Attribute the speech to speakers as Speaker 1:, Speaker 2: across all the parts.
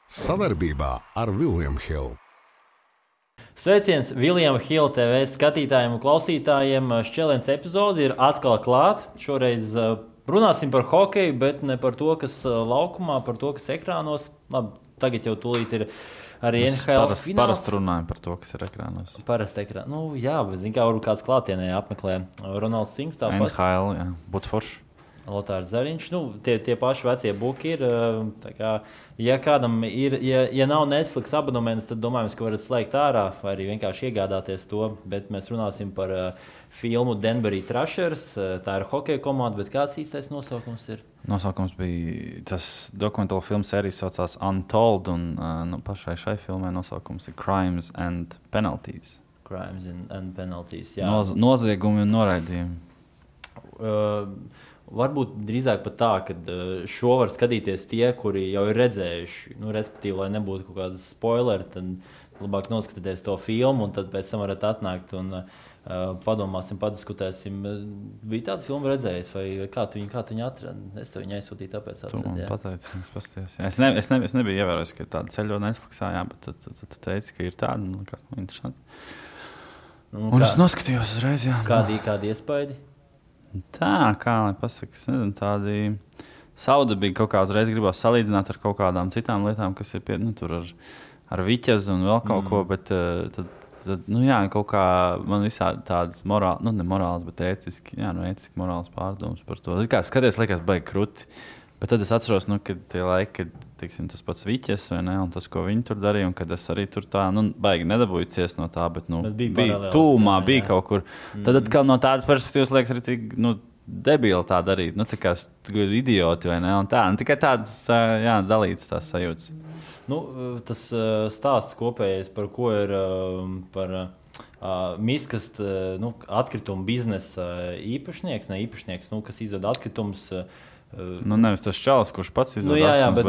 Speaker 1: Savarbībā ar William Hill.
Speaker 2: Sveiciens Viljama Hila TV skatītājiem un klausītājiem. Šķēlēns epizode ir atkal klāta. Šoreiz runāsim par hokeju, bet ne par to, kas laukumā, par to, kas ekrānos. Labi, tagad jau tūlīt ir arī NHL fināls.
Speaker 3: Parasti runājam par to, kas ir ekrānos.
Speaker 2: Parasti ekrānos. Nu, jā, bet zin kā, varbūt kāds klātienē apmeklē Ronalds Sings tāpat.
Speaker 3: NHL, jā, būtu forši.
Speaker 2: Lotārs Zariņš, tie paši vecie buki ir. Kā, ja kādam ir, ja nav Netflix abonements, tad domājams, ka varat slēgt ārā vai arī vienkārši iegādāties to. Bet mēs runāsim par filmu Denverī Thrashers. Tā ir hokeja komanda, bet kāds īstais nosaukums ir?
Speaker 3: Nosaukums bija tas dokumentāla filmu sērijas saucās Untold, un pašai šai filmai nosaukums ir Crimes and Penalties.
Speaker 2: Crimes and Penalties, jā.
Speaker 3: Noziegumi un noraidījumi.
Speaker 2: Varbūt drīzāk pat tā, ka šo var skatīties tie, kuri jau ir redzējuši. Respektīvi, lai nebūtu kaut kāda spoileri, tad labāk noskatieties to filmu, un tad pēc tam varat atnākt un padomāsim, padiskutēsim. Bija tāda filma redzējis, vai kā tu viņu atradi? Es tev viņu aizsūtīju, tāpēc
Speaker 3: atceru. Tu man pateici, es pastījos. Es nebiju ievērojis, ka ir tāda ceļo Netflixā, jā, bet tu teici, ka ir tāda, kas man interesanti. Un es noskatījos uzreiz, jā.
Speaker 2: Kādi iespaidi?
Speaker 3: Tā, kā lai pasaka, es nezinu, tādi saudabīgi kaut kā uzreiz gribās salīdzināt ar kaut kādām citām lietām, kas ir tur ar viķezu un vēl kaut ko, bet tad jā, kaut kā man visādi tādas morāli, ne morāls, bet ētiski morāls pārdomas par to. Kā skaties, liekas baigi kruti, bet tad es atceros, kad tie laiki, kad tiksim, tas pats viķes, vai ne, un tas, ko viņi tur darīja, un kad es arī tur tā, baigi nedabūju ciest no tā, bet bija tūmā, bija kaut kur. Tad atkal no tādas perspektīvas liekas arī tik, debili tā darīt, tā kā idioti, vai ne, un tā, tikai tādas, dalītas tās sajūtas.
Speaker 2: Tas stāsts kopējais, par ko ir par miskast, atkritumu biznesa īpašnieks, kas izved atkritumus.
Speaker 3: Nevis tas čalis, kurš pats izvēlējās,
Speaker 2: bet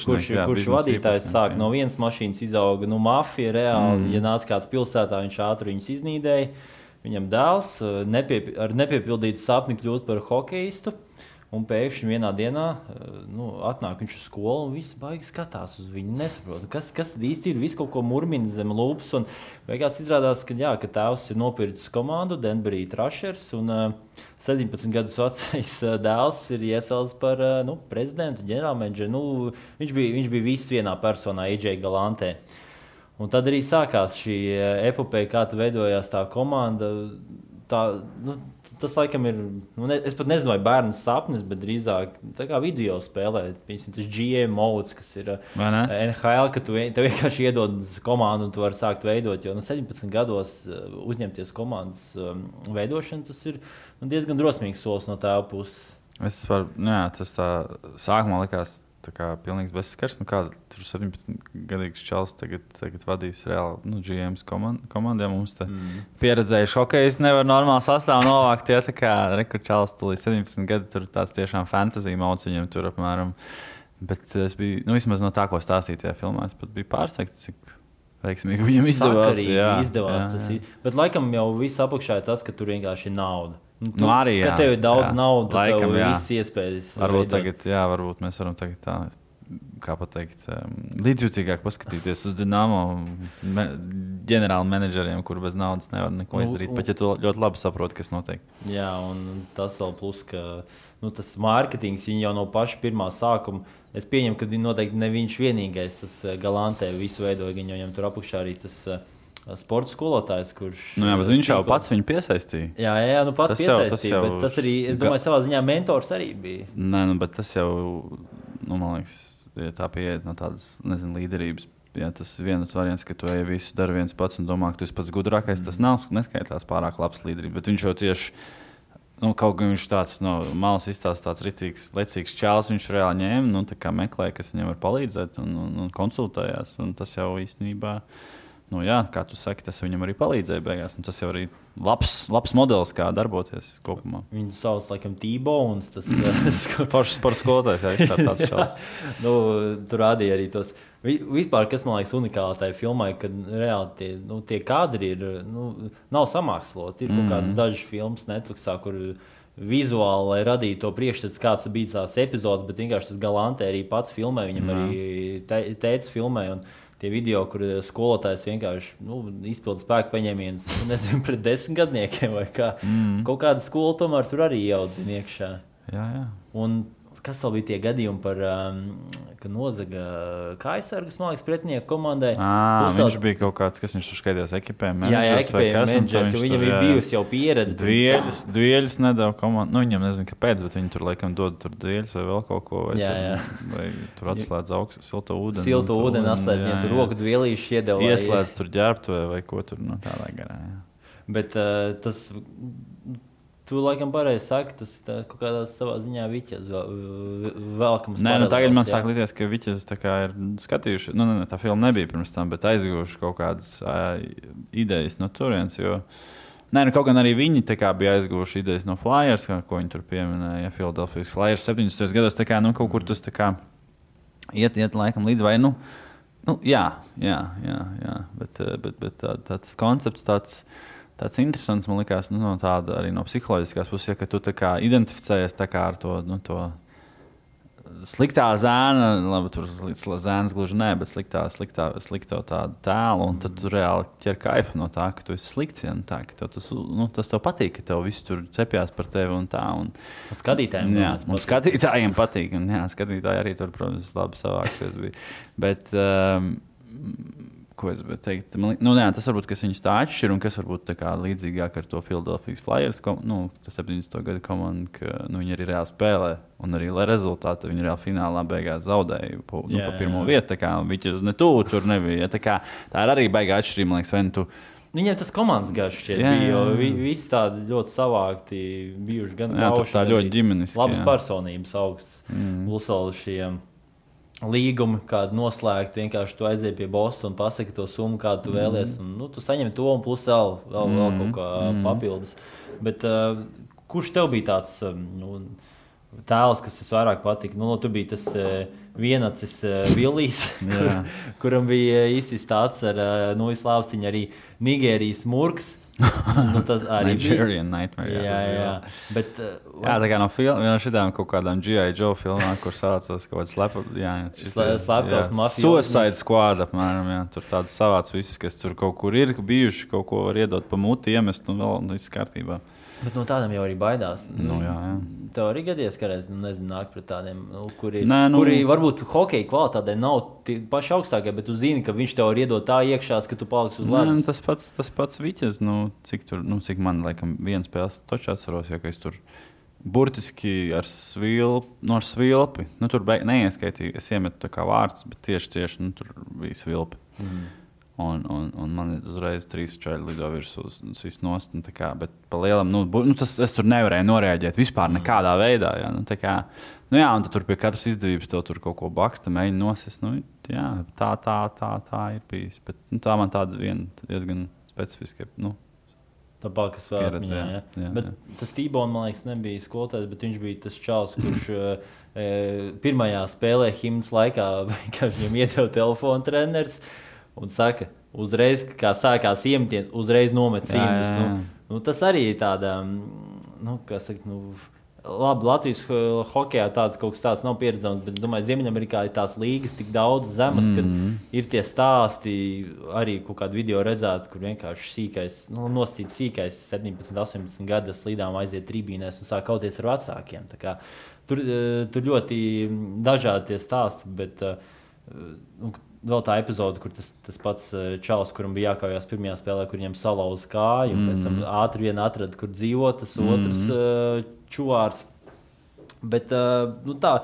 Speaker 2: kurš vadītājs sāk no vienas mašīnas izauga mafija reāli. Ja nāca kāds pilsētā, viņš ātri viņus iznīdēja. Viņam dēls ar nepiepildītu sapni kļūst par hokeistu. Un pēkšņi vienā dienā atnāk viņš uz skolu un viss baigi skatās uz viņu. Nesaprot, kas tad īsti ir, visu kaut ko murmina zem lūpas. Un beigās izrādās, ka tēvs ir nopircis komandu Denverī Thrashers un 17 gadus vecais dēls ir iecelts par prezidentu, ģenerālmenedžeru. Viņš bija viss vienā personā, AJ Galantē. Un tad arī sākās šī epopeja, kā veidojās tā komanda. Tas laikam ir, es pat nezinu, vai bērns sapnis, bet drīzāk tā kā video spēlē. Piemēram, tas GM modes, kas ir NHL, ka tev vienkārši iedod komandu un tu vari sākt veidot. Jo 17 gados uzņemties komandas veidošanu, tas ir diezgan drosmīgs solis no tēva puses.
Speaker 3: Tas tā sākumā likās tā kā pilnīgs bezskars. Kāda tur 17-gadīgs čalis tagad vadīs reāli GMs komandiem. Mums te pieredzējuši hokejs nevar normāli sastāvu novākt. Ja, tā kā rekurčalis tu līdz 17 gadi, tur tāds tiešām fantasy mods viņam tur apmēram. Bet es biju, vismaz no tā, ko stāstīju tajā filmā, es pat biju pārsteigts, cik veiksmīgi viņam izdevās.
Speaker 2: Tas ir. Bet laikam jau viss apakšā ir tas, ka tur vienkārši ir nauda.
Speaker 3: Arī, jā.
Speaker 2: Kad tev ir daudz naudas, tad tev ir viss iespējas.
Speaker 3: Varbūt mēs varam tagad tā, kā pateikt, līdzjūtīgāk paskatīties uz Dinamo ģenerāla menedžeriem, kur bez naudas nevar neko izdarīt, pat ja tu ļoti labi saproti, kas notiek.
Speaker 2: Jā, un tas vēl plus, ka tas mārketings, viņi jau no paša pirmā sākuma, es pieņemu, ka noteikti ne viņš vienīgais, tas Galantē visu veidoja, viņam tur apakšā arī tas sporta skolotājs, kurš...
Speaker 3: bet viņš jau pats viņu piesaistīja.
Speaker 2: Jā, pats piesaistīja, bet tas arī, es domāju, savā ziņā mentors arī bija.
Speaker 3: Bet tas jau, man liekas, ja tā pieiet no tādas, līderības. Jā, tas ir viens variants, ka tu visu dari viens pats un domā, ka tu esi pats gudrākais. Tas nav neskaitās pārāk labs līderības, bet viņš jau tieši, kaut kā viņš tāds no malas izstāsta tāds ritīgs, lecīgs čāls, viņš reāli ņēma, tā kā meklēja, kas viņam var palīdzēt un konsultējās, un tas jau īstenībā... kā tu saki, tas viņam arī palīdzēja beigās. Tas jau arī labs modelis, kā darboties kopumā.
Speaker 2: Viņu sauc laikam T-Bones. Tas
Speaker 3: foršs sporta skolotājs, jā, tāds šāds.
Speaker 2: Tur rādīja arī tos. Vispār, kas man liekas unikāli tajā filmai, kad reāli tie kadri ir, nav samāksloti. Ir kaut kādas dažas filmas Netflixā, kur vizuāli, lai radītu to priekšstats, kāds bija tās epizodes, bet vienkārši tas Galante arī pats filmē, viņam arī tētis filmē. Un tie video, kur skolotājs vienkārši izpilda spēku paņēmienus, nezinu, pret 10 gadniekiem vai kā. Kaut kāda skola tomēr tur arī ieaudzina iekšā.
Speaker 3: Jā.
Speaker 2: Un kas vēl bija tie gadījumi par, ka nozaga kājasargus, man liekas, pretinieku komandai?
Speaker 3: Viņš bija kaut kāds, kas viņš tur skaidījās ekipē menedžers
Speaker 2: vai kas. Viņam bija bijusi jau pieredze.
Speaker 3: Dvieļus nedēļ komandu. Viņam nezinu, kāpēc, bet viņi tur laikam dod tur dvieļus vai vēl kaut ko. Vai tur atslēdz augstu silto ūdeni.
Speaker 2: Silto ūdeni atslēdz, viņam tur roku dvielīšu iedeva.
Speaker 3: Ieslēdz tur ģērbtuvē vai ko tur tādā garā.
Speaker 2: Bet tas... Tu laikam pareizi saki, tas kaut kādā savā ziņā Viķes velkams.
Speaker 3: Nē, tagad man sāk likties, ka Viķes tā kā ir skatījuši, tā filma nebija pirms tam, bet aizguvuši kaut kādas idejas no turienes, jo... Nē, kaut gan arī viņi tā kā bija aizguvuši idejas no Flyers, ko viņi tur pieminēja, Philadelphia Flyers 70. gados, tā kā, kaut kur tas tā kā iet laikam līdz vai, jā, bet tas koncepts tāds interesants, man liekas, tāda arī no psiholoģiskās puses, ka tu tā kā identificējies tā kā ar to sliktā zēna, labi, tur zēns gluži nē, bet slikto tādu tēlu, un tad tu reāli ķer kaifu no tā, ka tu esi slikts, ja, tā, ka tas tev patīk, ka tev viss tur cepjās par tevi un tā. Un
Speaker 2: skatītājiem.
Speaker 3: Jā, un skatītājiem patīk, un jā, skatītāji arī tur, protams, labi savākšies bija. Bet... ko es teikt? Tas varbūt, kas viņus tā atšķir un kas varbūt tā kā līdzīgāk ar to Philadelphia Flyers, 70. gada komandu, ka viņi arī reāli spēlē un arī, lai rezultāti viņi reāli finālā beigās zaudēja pa pirmo vietu, tā kā Viķes ne tuvu tur nebija. Tā ir arī baigā atšķirība, man liekas, vai tu...
Speaker 2: Viņiem tas komandas garš šķiet bija, jo visi tādi ļoti savākti bijuši gan kauši,
Speaker 3: tā ļoti ģimeniski.
Speaker 2: Labas personības augsts, Lusala šiem līgumi, kādu noslēgt, vienkārši tu aiziet pie bossa un pasaki to summu, kādu tu vēlies. Un, tu saņem to un plus vēl kaut kā papildus. Bet kurš tev bija tāds tēls, kas visvairāk patika? Tu biji tas vienacis Villijs, kuram bija īstis tāds ar izlāpstiņu arī Nigērijas murgs. Tas arī
Speaker 3: Nigerian Nightmare.
Speaker 2: Jā. Bet,
Speaker 3: tā kā no šitām kaut kādām G.I. Joe filmām, kur saucās kaut kāds
Speaker 2: slepkavas mafijas.
Speaker 3: Suicide Squad apmēram, jā. Tur tāds savāds visus, kas tur kaut kur ir bijuši, kaut ko var iedot pa muti, iemest un vēl viss kārtībā.
Speaker 2: Bet no tādiem jau arī baidās.
Speaker 3: Jā.
Speaker 2: Tev arī gadies, ka reiz, nāk pret tādiem, kuri varbūt hokeja kvalitātē nav paši augstākie, bet tu zini, ka viņš tev var iedot tā iekšās, ka tu paliksi uz ledus.
Speaker 3: Tas pats Viķes, cik man, laikam, viena spēles točā atceros, ja ka es tur burtiski ar svilpi, tur neieskaitīju, es iemetu tā kā vārdus, bet tieši, tur bija svilpi. Un man uzreiz 3 čaļi lido virsū uz visu nost. Bet pa lielam, es tur nevarēju noreaģēt vispār nekādā veidā. Ja, un tad tur pie katras izdevības tev tur kaut ko baksta, mēģina nosist. Tā ir bijis. Bet tā man tāda viena diezgan specifiska.
Speaker 2: Tā palkas vēl atmiņā. Bet tas Tībons, man liekas, nebija skolotājs, bet viņš bija tas čals, kurš pirmajā spēlē himnas laikā vienkārši viņam iedeva telefonu treneris. Un saka, uzreiz, kā sākās iemetiens, uzreiz nomet cīņus. Tas arī ir tāda, labi, Latvijas hokejā tāds kaut kas tāds nav pieredzams, bet es domāju, Ziemeļamerikā ir tās līgas tik daudz zemes, kad ir tie stāsti, arī kaut kādu video redzēt, kur vienkārši sīkais, nosacīts sīkais 17, 18 gadu slīdām aiziet tribīnēs un sāk kauties ar vecākiem. Tā kā, tur ļoti dažādi tie stāsti, bet vēl tā epizode, kur tas pats čalis, kuram bija jākaujās pirmajā spēlē, kur viņam salauza kāju, un pēc tam ātri vien atrada, kur dzīvo tas otrs čuvārs. Bet tā,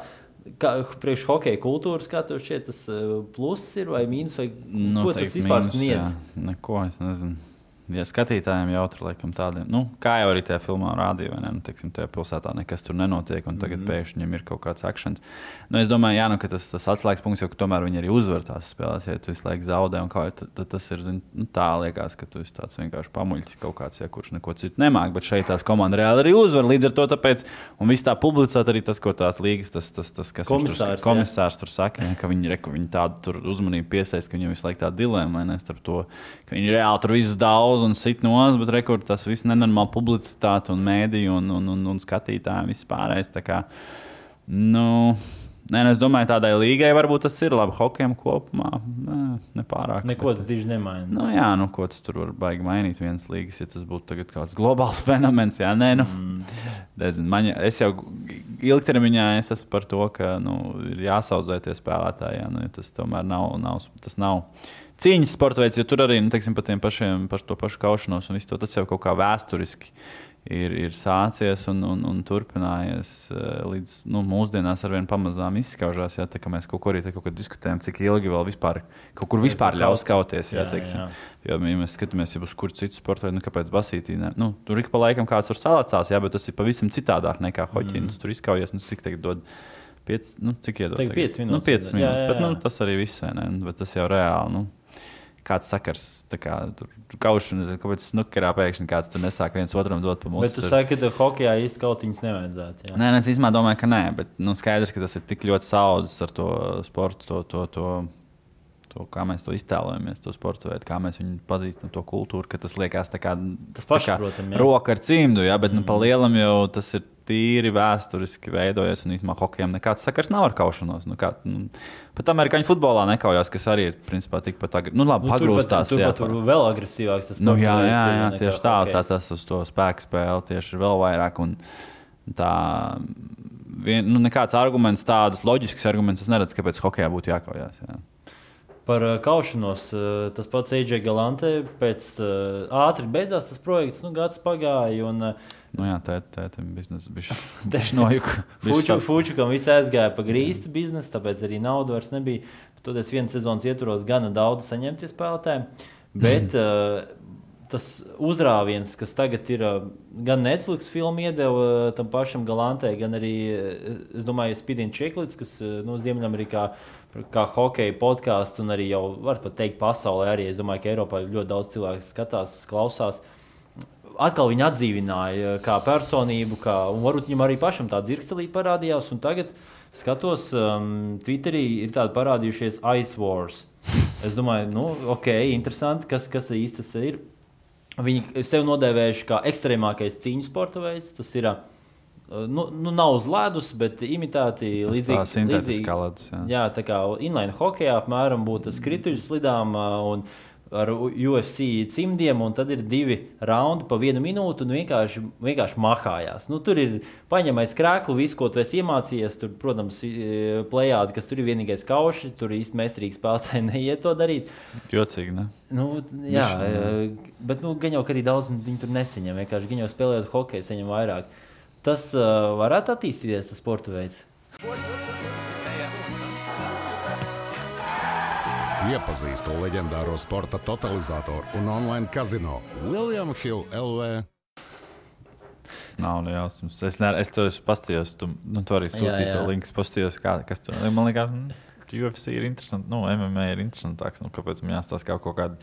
Speaker 2: priekš hokeja kultūras, kā tev šķiet, tas pluss ir vai mīnus, vai ko tas vispār sniedz?
Speaker 3: Neko, es nezinu. Ja skatītājiem jautri, laikam, tādiem, kā jau arī tajā filmā rādīja, vai ne, teiksim, tajā pilsētā nekas tur nenotiek, un tagad pēkšņi viņam ir kaut kāds akšens. Es domāju, ka tas atslēgas punkts, jo tomēr viņi arī uzvar tās spēlēs, ja tu visu laiku zaudē, un tad tas ir, tā liekas, ka tu esi tāds vienkārši pamuļķis kaut kāds, kurš neko citu nemāk, bet šeit tās komanda reāli arī uzvar, līdz ar to tāpēc, un viss tā publicēt arī tas, ko tās līgas, tas kas komisārs tur saka, ka viņi tādu tur uzmanību piesaist, ka viņam visu laiku tā dilēma, vai ne, starp to, ka viņi reāli tur visu daudz lauza un sit nos, bet rekur tas viss nenormāli publicitāte un mēdī un skatītāji viss pārējais. Tā kā, es domāju, tādai līgai varbūt tas ir labi. Hokejam kopumā nepārāk.
Speaker 2: Neko tas diži nemaina.
Speaker 3: Ko tas tur var baigi mainīt vienas līgas, ja tas būtu tagad kāds globāls fenomens. Jā, es jau ilgtermiņā esmu par to, ka ir jāsaudzē tie spēlētāji. Ja tas tomēr nav cīņas sporta veids, jo tur arī, teiksim, par to pašu kaušanos un visu to, tas jau kaut kā vēsturiski ir sācies un turpinājies līdz mūsdienās arvien pamazām izskaužās. Jā, tā kā mēs kaut ko diskutējam, cik ilgi vēl kaut kur vispār ļaus kauties. Jā. Jo, ja mēs skatāmies uz kuru citu sportu veidu, kāpēc basītī. Tur ik pa laikam kāds tur salacās, jā, bet tas ir pavisam citādāk nekā hoķī. Tur izkaujies, cik tagad dod 5, cik iedod?
Speaker 2: 5 minūtes.
Speaker 3: 5 minūtes, bet tas arī viss, ne? Bet tas jau reāli, kāds sakars, tur kaušana, kāpēc snukerā pēkšņi kāds tur nesāk viens otram dot pa muti.
Speaker 2: Bet tu saki, ka hokejā īsti kautiņas nevajadzētu. Jā.
Speaker 3: Nē, es īstenībā domāju, ka nē, bet skaidrs, ka tas ir tik ļoti saudzis ar to sportu, to kā mēs to iztēlojamies, to sportu veidu, kā mēs viņu pazīstam, to kultūru, ka tas liekas tā kā roka ar cimdu, jā, bet pa lielam jau tas ir tīri vēsturiski veidojies, un īstenībā hokejam nekāds sakars nav ar kaušanos. Pat amerikāņu futbolā nekaujās, kas arī ir principā tikpat pagrūstās.
Speaker 2: Tur pat vēl agresīvāks tas
Speaker 3: sports. Jā, tieši tā tas uz to spēku spēli tieši ir vēl vairāk. Un tā, nekāds arguments, tādas loģisks arguments, es neredzu, kāpēc hokejā būtu jākaujās. Jā.
Speaker 2: Par kaušanos, tas pats AJ Galante, pēc ātri beidzās tas projekts, gads pagāja.
Speaker 3: Tētim biznesa bišķi nojuka.
Speaker 2: Fučukam viss aizgāja pa grīstu biznesu, tāpēc arī nauda vairs nebija. Toties vienas sezonas ietvaros gana daudz saņemtie spēlētāji. Bet tas uzrāviens, kas tagad ir gan Netflix filmu iedeva tam pašam Galantē, gan arī, es domāju, Spidin Čeklits, kas Ziemeļamerikā kā hokeja podkāsts un arī jau var pat teikt pasaulē arī. Es domāju, ka Eiropā ļoti daudz cilvēku skatās, klausās. Atkal viņu atdzīvināja kā personību, un varbūt viņam arī pašam tā dzirkstelīte parādījās. Un tagad skatos, Twitterī ir tādi parādījušies Ice Wars. Es domāju, interesanti, kas īsti tas ir. Viņi sev nodēvējuši kā ekstrēmākais cīņu sporta veids. Tas ir, nav uz ledus, bet imitēti līdzīgi. Jā, tā kā inline hokejā apmēram būtu skrituļu slidām un ar UFC cimdiem, un tad ir 2 raundi pa 1 minūtu un vienkārši mahājās. Tur ir paņemais krēklu, visu, ko tu esi iemācījies. Tur, protams, plejādi, kas tur ir vienīgais kauši, tur īsti meistarīgi spēlētāji neiet to darīt.
Speaker 3: Jocīgi, ne?
Speaker 2: Jā, bet gan jau, ka arī daudz viņi tur nesaņem. Vienkārši gan jau spēlējot hokeju, saņem vairāk. Tas varētu attīstīties, tas sporta veids.
Speaker 1: Iepazīstu leģendāro sporta totalizatoru un online kazino William Hill LV.
Speaker 3: Nav jausmas. Es to paskatījos, tu arī sūtīji to linku, paskatījos, kas tur. Man liekas, UFC ir interesanti, MMA ir interesantāks, kāpēc man jāstāsta kaut kādu.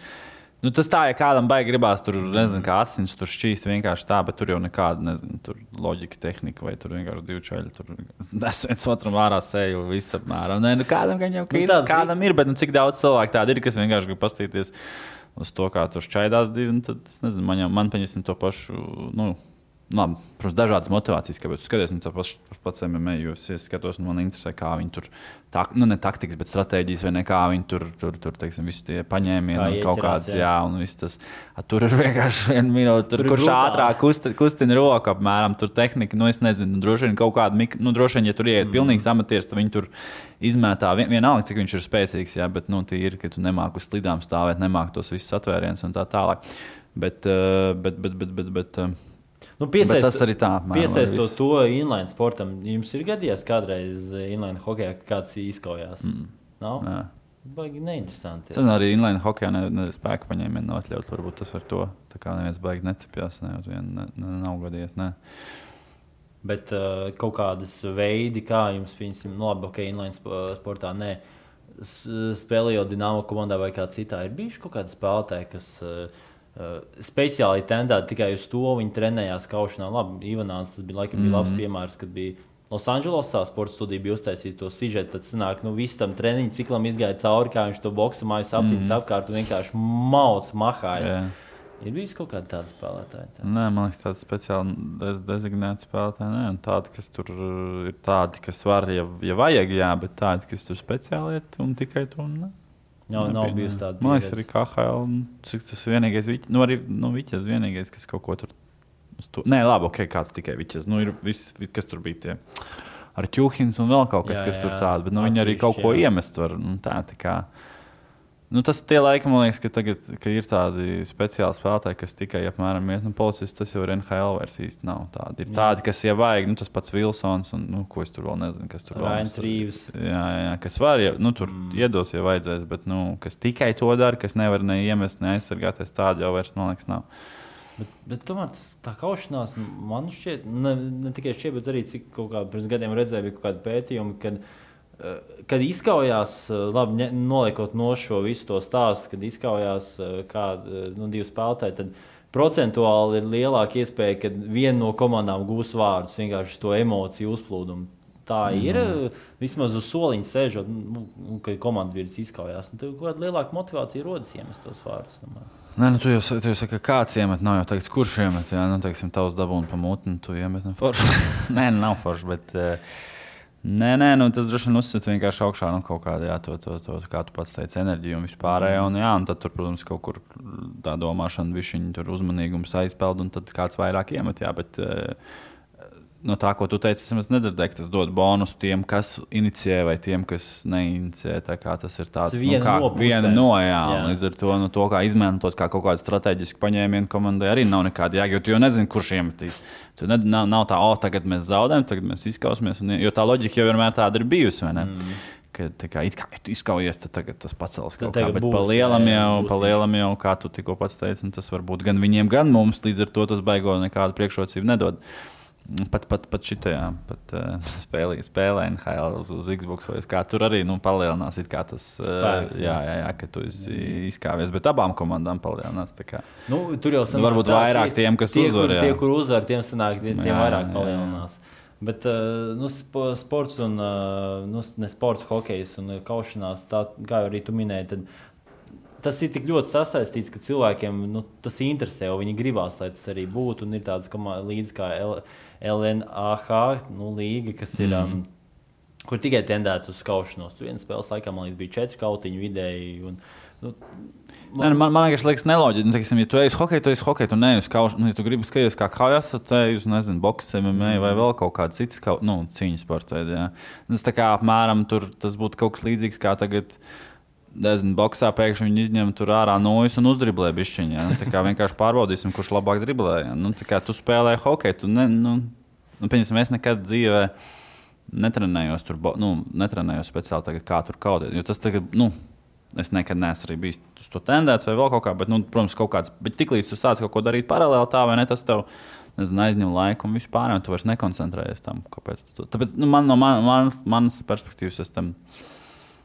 Speaker 3: Tas tā, ja kādam baigi gribās, tur, nezinu, kā asins tur šķīst vienkārši tā, bet tur jau nekāda, nezinu, tur loģika, tehnika, vai tur vienkārši 2 čaļi, tur nes viens otram ārā seju, viss apmēram. Kādam gan jau kādam ir, bet cik daudz cilvēku tādi ir, kas vienkārši grib pastīties uz to, kā tur šķaidās 2, tad, es nezinu, man paņesim to pašu, labi, protams, dažādas motivācijas, kāpēc tu skaties, to pats MMA, jo es skatos, un man interesē, kā viņi tur, ne taktikas, bet stratēģijas, vai ne, kā viņi tur teiksim, visi tie paņēmieni, kaut kāds, jā, un viss tas, tur ir vienkārši 1 minūte, tur kurš ātrāk kustina roku apmēram, tur tehnika, es nezinu, droši vien kaut kāda, droši vien, ja tur ieiet pilnīgs amatieris, tad viņi tur izmētā, vienalga, cik viņš ir spēcīgs, jā, bet, tie ir, ka tu nemāk uz slidām stāvēt, nemāk tos visus atvērienus un tā tālāk, bet tas arī tā.
Speaker 2: Piesaistot to inline sportam, jums ir gadījies kādreiz inline hokejā, ka kāds izkaujās? Nav? Nē. Baigi neinteresanti.
Speaker 3: Tad arī inline hokejā spēka paņēmienu nav atļaut. Varbūt tas ar to, tā kā neviens baigi necepjās, uz vienu nav gadījies, nē.
Speaker 2: Bet kaut kādas veidi, kā jums, piemēram, labi, inline sportā, nē, spēlējot Dinamo komandā vai kā citā, ir bijuši kaut kādi spēlētāji, kas speciāli tendēti tikai uz to, viņi trenējās kaušanā. Labi, Ivanāns, tas bija labs piemērs, kad bija Losandželosā sporta studija bija uztaisījis to sižetu, tad sanāk, visu tam treniņu ciklam izgāja cauri, kā viņš to boksa mājas aptīnas apkārt un vienkārši mahājas. Ir bijis kaut kāda tāda spēlētāja? Tā?
Speaker 3: Nē, man liekas, tāda speciāli dezignēta spēlētāja. Nē, tādi, kas tur ir tādi, kas var, ja vajag, jā, bet tādi, kas tur speciāli iet un tikai tur.
Speaker 2: Nav bijusi tāda.
Speaker 3: Man liekas, arī KHL, cik tas vienīgais, arī Viķes vienīgais, kas kaut ko tur. Nē, labi, ok, kāds tikai Viķes. Ir viss, kas tur bija tie. Ar Ķuhins un vēl kaut kas, kas tur tāda, bet viņi arī kaut ko iemest var. Tā kā. Tas tie laiki, man liekas, ka tagad ka ir tādi speciāli spēlētāji, kas tikai apmēram iet. Policists tas jau ir NHL vairs īsti nav tādi. Ir tādi, kas jau vajag, tas pats Vilsons un, ko es tur vēl nezinu, kas tur vēl.
Speaker 2: Rains Rīvs.
Speaker 3: Jā, kas var, tur iedos, ja vajadzēs, bet, kas tikai to dara, kas nevar ne iemest, ne aizsargāties, tādi jau vairs, man liekas, nav.
Speaker 2: Bet tomēr tā kaušanās, man šķiet, ne tikai šķiet, bet arī cik kaut kā pirms gadiem redzēju, bija kaut kādi pētījumi, kad izkaujās, labi, noliekot no šo visu to stāstu, kad izkaujās divi spēlētāji, tad procentuāli ir lielāka iespēja, ka viena no komandām gūs vārdus, vienkārši to emociju uzplūdumu. Tā ir, vismaz uz soliņa sēžot, kad komandas biedrs izkaujās. Tad kāda lielāka motivācija rodas iemest tos vārdus.
Speaker 3: Nē, tu jau saki, ka kāds iemet, nav jau tagad, kurš iemet, jā, teiksim, tavs dabūna pa mutni, tu iemet, forši. Nē, nav forši, bet... Nē, tas droši vien uzsit vienkārši augšā kaut kādā, jā, to kā tu pats teici, enerģiju un vispārējo. Un tad tur, protams, kaut kur tā domāšana, višķiņa tur uzmanīgums aizpeld un tad kāds vairāk iemet, jā, bet no tā, ko tu teici, es nedzirdēju, ka tas dod bonusu tiem, kas inicijē vai tiem, kas neinicē. Tā kā tas ir tāds, viena no, jā. Līdz ar to kā izmantot kā kaut kādu strateģisku paņēmienu komandai arī nav nekāda jēga, jo tu jau nezini, kurš iemetīs. Tu nav tā, tagad mēs zaudējam, tagad mēs izkausmies, jo tā loģika jau vienmēr tāda ir bijusi, vai ne? Kad it kā izkaujies, tad tagad tas pacels kaut kā, bet pa lielam jau, kā tu tikko pats teici, tas var būt gan viņiem, gan mums, līdz ar to tas baigo nekādu priekšrocību nedod. Pat šitajā spēlē NHL uz Xbox vai kā tur arī palielinās it kā tas spēks, jā, ka tu izkāvies, bet abām komandām palielinās.
Speaker 2: Tur jau sanāk,
Speaker 3: varbūt vairāk tiem, kas uzvar.
Speaker 2: Tie, kur uzvar, tiem sanāk, tiem vairāk palielinās. Bet sports un ne sports, hokejs un kaušanās, tā, kā arī tu minēji, tad tas ir tik ļoti sasaistīts, ka cilvēkiem tas interesē, un viņi gribās, lai tas arī būtu. Un ir tādas līdzi kā LNAH līga, kas ir, kur tikai tendēt uz kaušanos. Tur vienas spēles laikā, man liekas, bija 4 kautiņu vidēji.
Speaker 3: Man liekas neloģiski. Ja tu ej uz hokeju, tu neej uz kaušanu. Ja tu gribi skatīties kā kaujas, tad ej uz, boks, MMA vai vēl kaut kāda citas cīņas sporta veidi. Tas tā kā apmēram tur tas būtu kaut kas līdzīgs kā tagad. Boksā pēkšņi viņi izņem tur ārā nojas un uzdriblē bišķiņā. Tā kā vienkārši pārbaudīsim, kurš labāk driblē. Tā kā tu spēlē hokeju, pieņemsim, es nekad dzīvē netrenējos tur, netrenējos speciāli tagad, kā tur kaudēt. Jo tas tagad, es nekad neesmu arī bijis uz to tendēts vai vēl kaut kā, bet, protams, kaut kāds, bet tiklīdz tu sāc kaut ko darīt paralēli tā, vai ne, tas tev, aizņem laiku un vispār, un tu vairs nekoncentrējies tam, kāpēc. Tāpēc, no manas perspektīvas es tam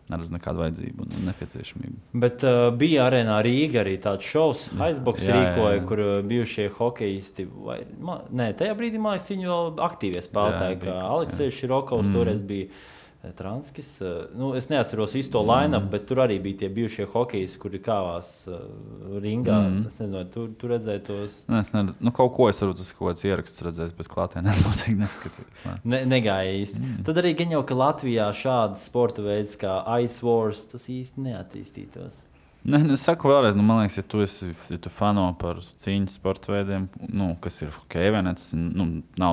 Speaker 3: neredz nekādu vajadzību un nepieciešamību.
Speaker 2: Bet bija arēnā Rīga arī tāds šovs, Icebox rīkoja, kur bijušie hokejisti, tajā brīdī, man liekas, viņi vēl aktīvie spēlētāji, kā Aleksejs Širokovs toreiz bija Transkis. Es neatceros visu to line-up, bet tur arī bija tie bijušie hokejisti, kuri kāvās ringā. Es nezinu, tu redzēji tos?
Speaker 3: Kaut ko es varbūt kaut kāds ieraksts redzēs, bet klātienē noteikti neskatījos.
Speaker 2: Negāja īsti. Tad arī gan jau, ka Latvijā šādas sporta veids kā Ice Wars, tas īsti neattīstītos.
Speaker 3: Es saku vēlreiz, man liekas, ja tu fano par cīņas sporta veidiem, kas ir hokejs, vai ne, tas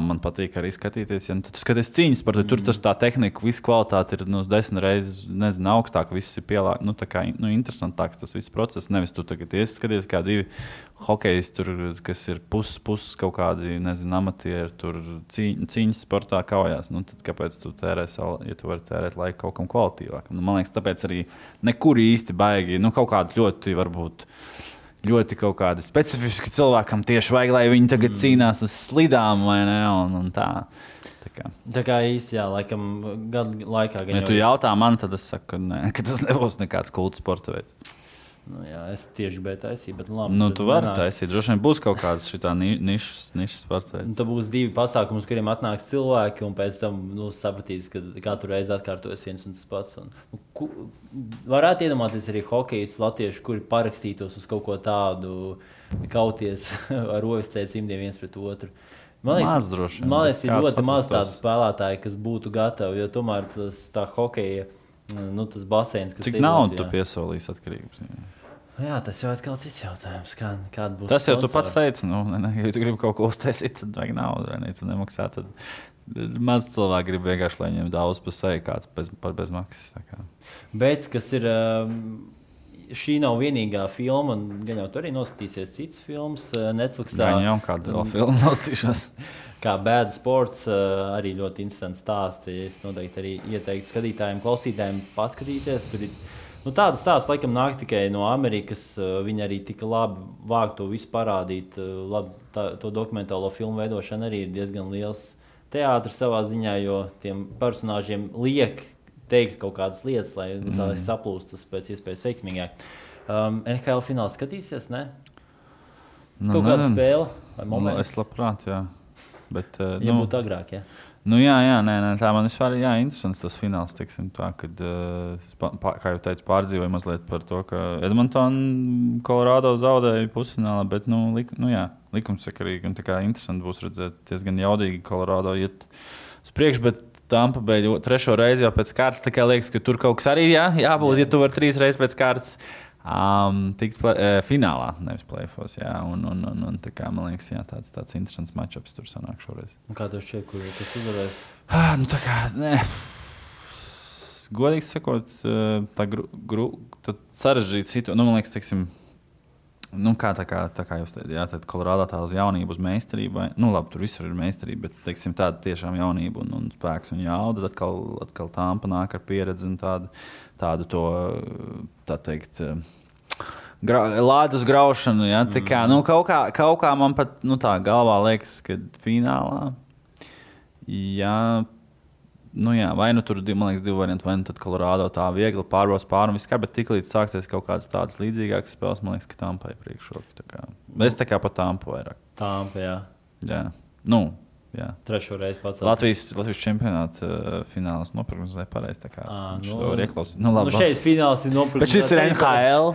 Speaker 3: man patīk arī skatīties. Ja tu skaties cīņas sporta, tur tas tā tehnika, visa kvalitāte ir 10 reizes, augstāk, viss ir pielāgts, tā kā interesantāks tas viss process. Nevis tu tagad skaties kā divi hokejs, kas ir pus kaut kādi, amatieri, tur cīņas sportā kaujās. Tad kāpēc tu tērē savu, ja tu vari tērēt laiku kaut kam kvalitīvāk? Man liekas, tāpēc arī nekur īsti baigi, kaut kādi ļoti, varbūt, ļoti kaut kādi specifiski cilvēkam tieši vajag, lai viņi tagad cīnās uz slidām, vai ne, un tā.
Speaker 2: Tā kā īsti, jā, laikam gadu laikā.
Speaker 3: Ja tu jautā man, tad es saku, ka tas nebūs nekāds kulta sporta veids.
Speaker 2: Nu, jā, es tieši gribēju taisīt, bet labi.
Speaker 3: Nu, tu vari taisīt. Droši vien būs kaut kāds šitā nišas sports.
Speaker 2: Tad būs 2 pasākumi, uz kuriem atnāks cilvēki, un pēc tam sapratīs, ka katru reizi atkārtojas viens un tas pats. Varētu iedomāties arī hokejus latviešu, kuri parakstītos uz kaut ko tādu, kauties ar OFC cimdiem viens pret otru. Man liekas, ir ļoti maz tādu spēlētāju, kas būtu gatavi, jo tomēr tā hokeja, tas baseins, kas
Speaker 3: cik naudu tu piesolīs atkarības?
Speaker 2: Jā, tas jau atkal cits jautājums. Kāda būs
Speaker 3: tas jau sponsori? Tu pats teici, ja tu gribi kaut ko uztaisīt, tad vajag naudu, vai ne? Tu nemaksā, tad maz cilvēki grib vienkārši, lai viņiem daudz pa seju kāds par bezmaksas.
Speaker 2: Bet, kas ir, šī nav vienīgā filma, un gan jau tu arī noskatīsies citas filmas Netflixā.
Speaker 3: Gan jau kādu vēl filmu noskatīšos.
Speaker 2: Kā Bad Sports, arī ļoti interesants stāsts. Es noteikti arī ieteiktu skatītājiem, klausītājiem paskatīties. Tur ir tādas stāsts, laikam, nāk tikai no Amerikas. Viņi arī tik labi vāk to visu parādīt. To dokumentālo filmu veidošana arī ir diezgan liels teātris savā ziņā, jo tiem personāžiem liek teikt kaut kādas lietas, lai saplūst tas pēc iespējas veiksmīgāk. NHL fināls skatīsies, ne? Kaut kāda spēle vai moments?
Speaker 3: Es labprāt, jā. Bet,
Speaker 2: būtu agrāk, jā.
Speaker 3: Tā man vispār ir interesants tas fināls, teiksim tā, kad, kā jau teicu, pārdzīvoju mazliet par to, ka Edmonton Colorado zaudēja pusfinālā, bet, likumsakarīgi un tā kā interesanti būs redzēt, diezgan jaudīgi Colorado iet uz priekšu, bet Tampa Bay 3. reizi jau pēc kārtas, tā kā liekas, ka tur kaut kas arī jābūt, ja tu var 3 reizes pēc kārtas. Tikt finālā, nevis play-offs. Un tā kā man liekas, tāds interesants matchups tur sanāk šoreiz.
Speaker 2: Un kā tev šķiet, kur tas uzvarēs?
Speaker 3: Tā kā, godīgi sakot, tā sarežģīta situācija. Man liekas, teiksim, tā kā jūs teicāt, tad Colorado tā uz jaunību, uz meistarību. Labi, tur visur ir meistarība, bet teiksim, tāda tiešām jaunība un spēks un jauda. Atkal Tampa nāk ar pieredzi un tādu to, tā teikt, lādus graušanu. Ja? Tā kā, kaut kā man pat tā galvā liekas, ka finālā, vai tur, man liekas, 2 varianti, vai tad Colorado tā viegli pārbrauc pāri un viss kā, bet tiklīdz sāksies kaut kādas tādas līdzīgākas spēles, man liekas, ka Tampa ir priekšroka. Es tā kā pa Tampu vairāk.
Speaker 2: Tampa, jā.
Speaker 3: Jā. Jā.
Speaker 2: 3. reizi pats.
Speaker 3: Latvijas čempionāta fināls noprognozēja pareizi.
Speaker 2: Šeit fināls ir noprognozēts.
Speaker 3: Bet šis ir NHL.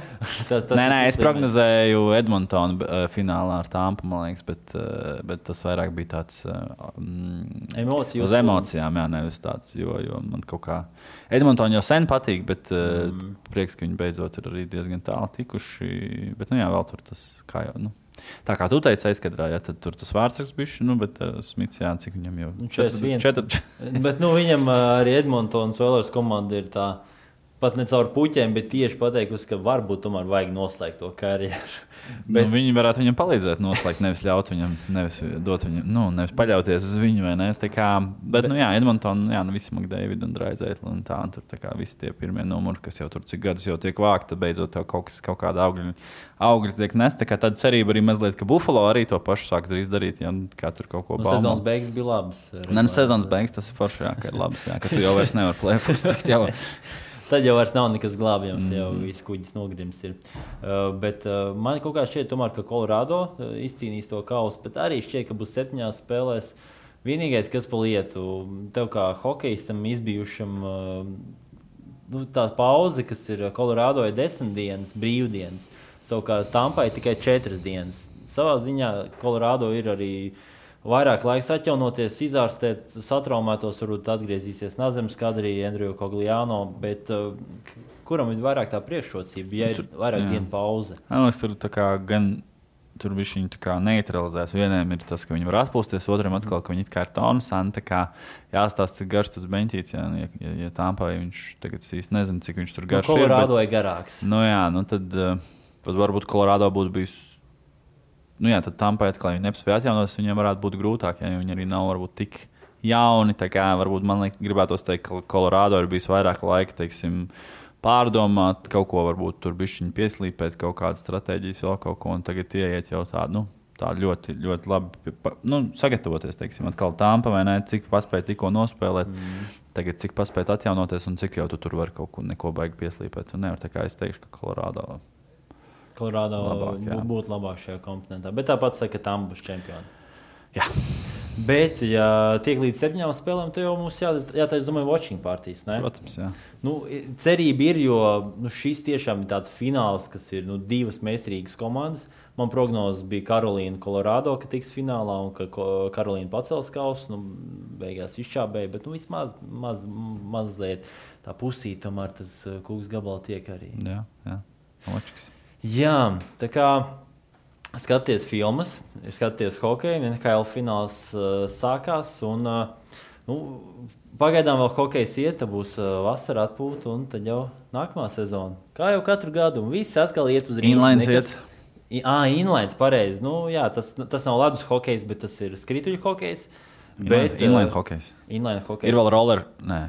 Speaker 3: Es prognozēju Edmontonu finālā ar Tampu, man liekas, bet tas vairāk bija tāds uz emocijām, nevis tāds, jo man kaut kā Edmontonu jau sen patīk, bet prieks, ka viņi beidzot ir arī diezgan tālu tikuši. Bet, vēl tur tas kā jau, tā kā tu teici aizkadrā, tad tur tas vārdsargs bišķi, bet Smits, cik viņam jau
Speaker 2: 4. Bet viņam arī Edmontonas Oilers komanda ir tā, pat ne caur puķiem, bet tieši pateikusi, ka varbūt tomēr vajag noslēgt to karjeru. Bet
Speaker 3: viņi varētu viņam palīdzēt noslēgt, nevis ļaut viņam, nevis dot viņam, nevis paļauties uz viņu, vai ne? Bet, Edmonton, visi McDavid un Draisaitl un tā, un tur tā kā visi tie pirmie numuri, kas jau tur cik gadus jau tiek vākti, tad beidzot jau kaut kāda augļi tiek nest. Tā kā tāda cerība arī mazliet, ka Buffalo arī to pašu sāks drīz darīt, kā tur kaut ko baumo.
Speaker 2: Sezonas beigas bija labas.
Speaker 3: Sezonas beigas tas ir forši, ka ir labas, ka tu jau vairs nevar play-offs tikt jau.
Speaker 2: Tad jau vairs nav nekas glābjams, jau viss kuģis nogrims ir. Bet man kaut kā šķiet, tomēr, ka Colorado izcīnīs to kausu, bet arī šķiet, ka būs 7 spēlēs. Vienīgais, kas pa lietu, tev kā hokejistam izbijušam, tā pauze, kas ir Colorado, ir 10 dienas, brīvdienas. Savukārt Tampai tikai 4 dienas. Savā ziņā Colorado ir arī vairāk laiks atjaunoties, izārstēt satraumētos, varbūt atgriezīsies Nazemes kadrī, Andriju Cogliano, bet kuram ir vairāk tā priekšrocība, ja ir vairāk dienu pauze?
Speaker 3: Tur tā kā gan tur viņi tā kā neutralizēs. Vieniem ir tas, ka viņi var atpūsties, otram atkal, ka viņi it kā ir tonusani, tā kā jāstāsta, cik garš tas beņķīts, ja Tampai viņš tagad īsti nezinu, cik viņš tur garš ir.
Speaker 2: Colorado ir garāks.
Speaker 3: Tad varbūt Colorado būtu bijis. Tad Tampai atkal viņi nespēja atjaunoties, viņiem varētu būt grūtāk, jo viņi arī nav varbūt tik jauni. Tā kā varbūt man gribētos teikt, ka Colorado ir bijis vairāk laika, teiksim, pārdomāt kaut ko, varbūt tur bišķiņi pieslīpēt kaut kādas stratēģijas, vēl kaut ko, un tagad ieiet jau tādu, ļoti, ļoti labi sagatavoties, teiksim, atkal Tampa vai ne, cik paspēja tikko nospēlēt, tagad cik paspēja atjaunoties un cik jau tu tur var kaut ko neko baigi pieslīpēt. Un nevar, tā kā es teikšu, ka Colorado
Speaker 2: Kolorādo būtu labāk šajā komponentā. Bet tāpat saka, ka tam būs čempioni.
Speaker 3: Jā.
Speaker 2: Bet, ja tiek līdz 7 spēlēm, tad jau mums jātaisa, domāju, watching partijas, ne?
Speaker 3: Protams, jā.
Speaker 2: Cerība ir, jo šis tiešām ir tāds fināls, kas ir 2 meistarīgas komandas. Man prognozes bija Karolīna, Kolorādo, ka tiks finālā un ka Karolīna pacels kausu. Beigās izčābēja, bet vismaz mazliet tā pusīt, tomēr tas kūks gabala tiek arī.
Speaker 3: Jā. Loģiski.
Speaker 2: Jā, tā kā skaties filmas, skaties hokeju, NHL fināls sākās un pagaidām vēl hokejs iet, tad būs vasara atpūta un tad jau nākamā sezona. Kā jau katru gadu un visi atkal iet uz rīnu.
Speaker 3: Inlines iet.
Speaker 2: Inlines, pareizi. Jā, tas nav ledus hokejs, bet tas ir skrituļu hokejs.
Speaker 3: Inline hokejs.
Speaker 2: Inline hokejs.
Speaker 3: Ir vēl roller, nē,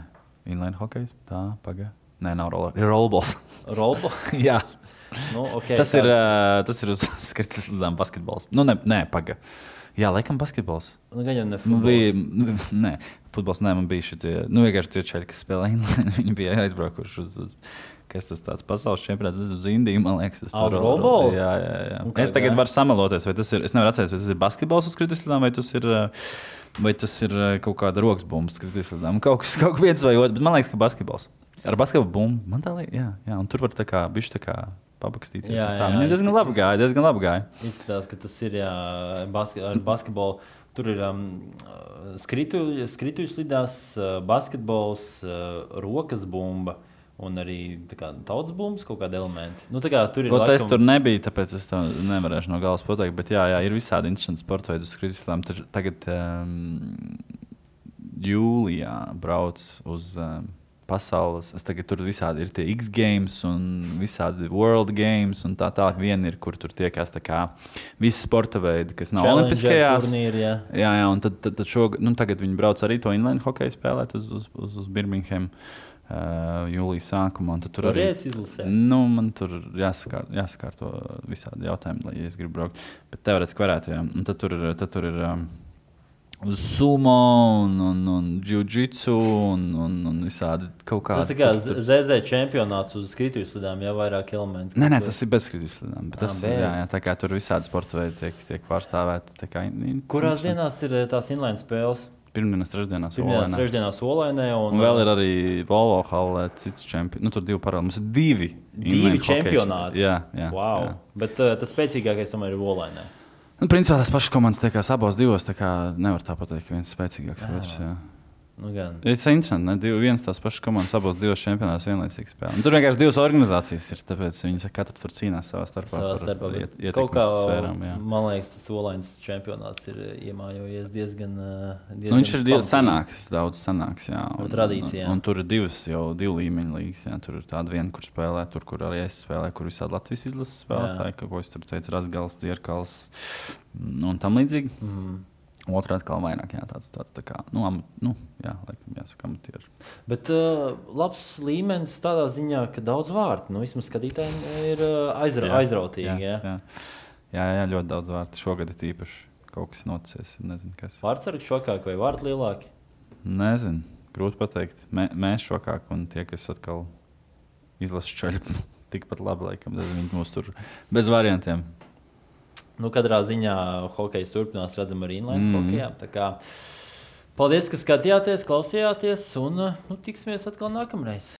Speaker 3: inline hokejs, tā, paga. Nē, nav roller, ir rollballs.
Speaker 2: Rollballs?
Speaker 3: Jā.
Speaker 2: Okay,
Speaker 3: tas ir uz skrituļu slidām basketbols. Nē, paga. Jā, laikam basketbols.
Speaker 2: Gan jau ne futbols.
Speaker 3: Nē, futbols nē, man bija šitie, vienkārši tie čeļi, kas spēlē inline, viņi bija aizbraukuši uz kas tas tāds pasaules čempionāts, uz Indiju, man liekas.
Speaker 2: Rollball?
Speaker 3: Jā. Es tagad varu samaloties, vai tas ir, es nevaru atcerēties, vai tas ir basketbols uz skrituļu slidām, vai tas ir kaut kāda rokas bumba skrituļu slidām. Kaut viens vai otrs, bet man liekas, ka basketbols. Ar basketbolu bumbu, man tā liekas, jā, un tur var tā kā bišķi tā kā pabakstīties. Viņam diezgan labi gāja.
Speaker 2: Izskatās, ka tas ir ar basketbolu. Tur ir skrituļu slidās, basketbols, rokas bumba un arī tautas bumbas kaut kādi elementi. Tur ir
Speaker 3: Es tur nebiju, tāpēc es to nevarēšu no galas pateikt, bet jā, ir visādi interesanti sporta veidi uz skrituļu slidām. Tagad jūlijā brauc uz pasaules. Tagad tur visādi ir tie X Games un visādi World Games un tā. Viena ir, kur tur tiekās tā kā visi sporta veidi, kas nav olimpiskajās.
Speaker 2: Turnīri,
Speaker 3: jā, un tad tagad viņi brauc arī to inline hokeju spēlēt uz Birmingham jūlijas sākumā. Tur arī
Speaker 2: izlasē.
Speaker 3: Man tur jāsakārto visādi jautājumi, lai es gribu braukt. Bet teorētiski varētu, jā. Un tad tur ir sumo un jiu-jitsu un visādi kaut kādi.
Speaker 2: Tas kā ZZ čempionāts uz skrituļu slidām, jau vairāk elementi.
Speaker 3: Nē, tas ir bez skrituļu slidām. Tā kā tur visādi sporta veidi tiek pārstāvēti.
Speaker 2: Kurās dienās ir tās inline spēles?
Speaker 3: Pirmdienās,
Speaker 2: trešdienās Olainē.
Speaker 3: Un vēl ir arī Volvo hallē cits čempions. Tur 2 paralēli. Mums ir
Speaker 2: 2 čempionāti.
Speaker 3: Jā.
Speaker 2: Wow.
Speaker 3: Jā.
Speaker 2: Bet tas spēcīgākais tomēr ir Olainē.
Speaker 3: Principā tās pašas komandas tiekās abos divos, tā kā nevar tā pateikt, ka viens spēcīgāks otrs.
Speaker 2: Gan.
Speaker 3: Tas ir interesanti, viens tās pašas komandas abos divos čempionātos vienlaicīgi spēlē. Tur vienkārši 2 organizācijas ir, tāpēc viņi katra tur cīnās savā starpā.
Speaker 2: Kaut kā, man liekas, tas Olainas čempionāts ir iemājojies diezgan
Speaker 3: viņš ir daudz sanāks, jā.
Speaker 2: Tradīcijā.
Speaker 3: Un tur ir 2 līmeņu līgas, jā. Tur ir tāda viena, kur spēlē, tur, kur arī es spēlēju, kur visādi Latvijas izlases spēlētāji, ko es tur teicu, Razgals, Dzierkals un tam līdzīgi. Otrā atkal vairāk, jā, tāds tā kā, laikam jāsaka amatieri.
Speaker 2: Bet labs līmenis tādā ziņā, ka daudz vārtu, vismaz skatītājiem ir aizrautīgi.
Speaker 3: Jā, ļoti daudz vārtu. Šogad ir īpaši kaut kas noticies, nezinu kas.
Speaker 2: Vārtsargi šokāk vai vārti lielāki?
Speaker 3: Nezinu, grūti pateikt. Mēs šokāk un tie, kas atkal izlasa čaļi, tikpat labi, laikam, viņi mūs tur bez variantiem.
Speaker 2: Katrā ziņā hokejs turpinās, redzam, arī inline hokejā. Tā kā paldies, ka skatījāties, klausījāties un tiksimies atkal nākamreiz.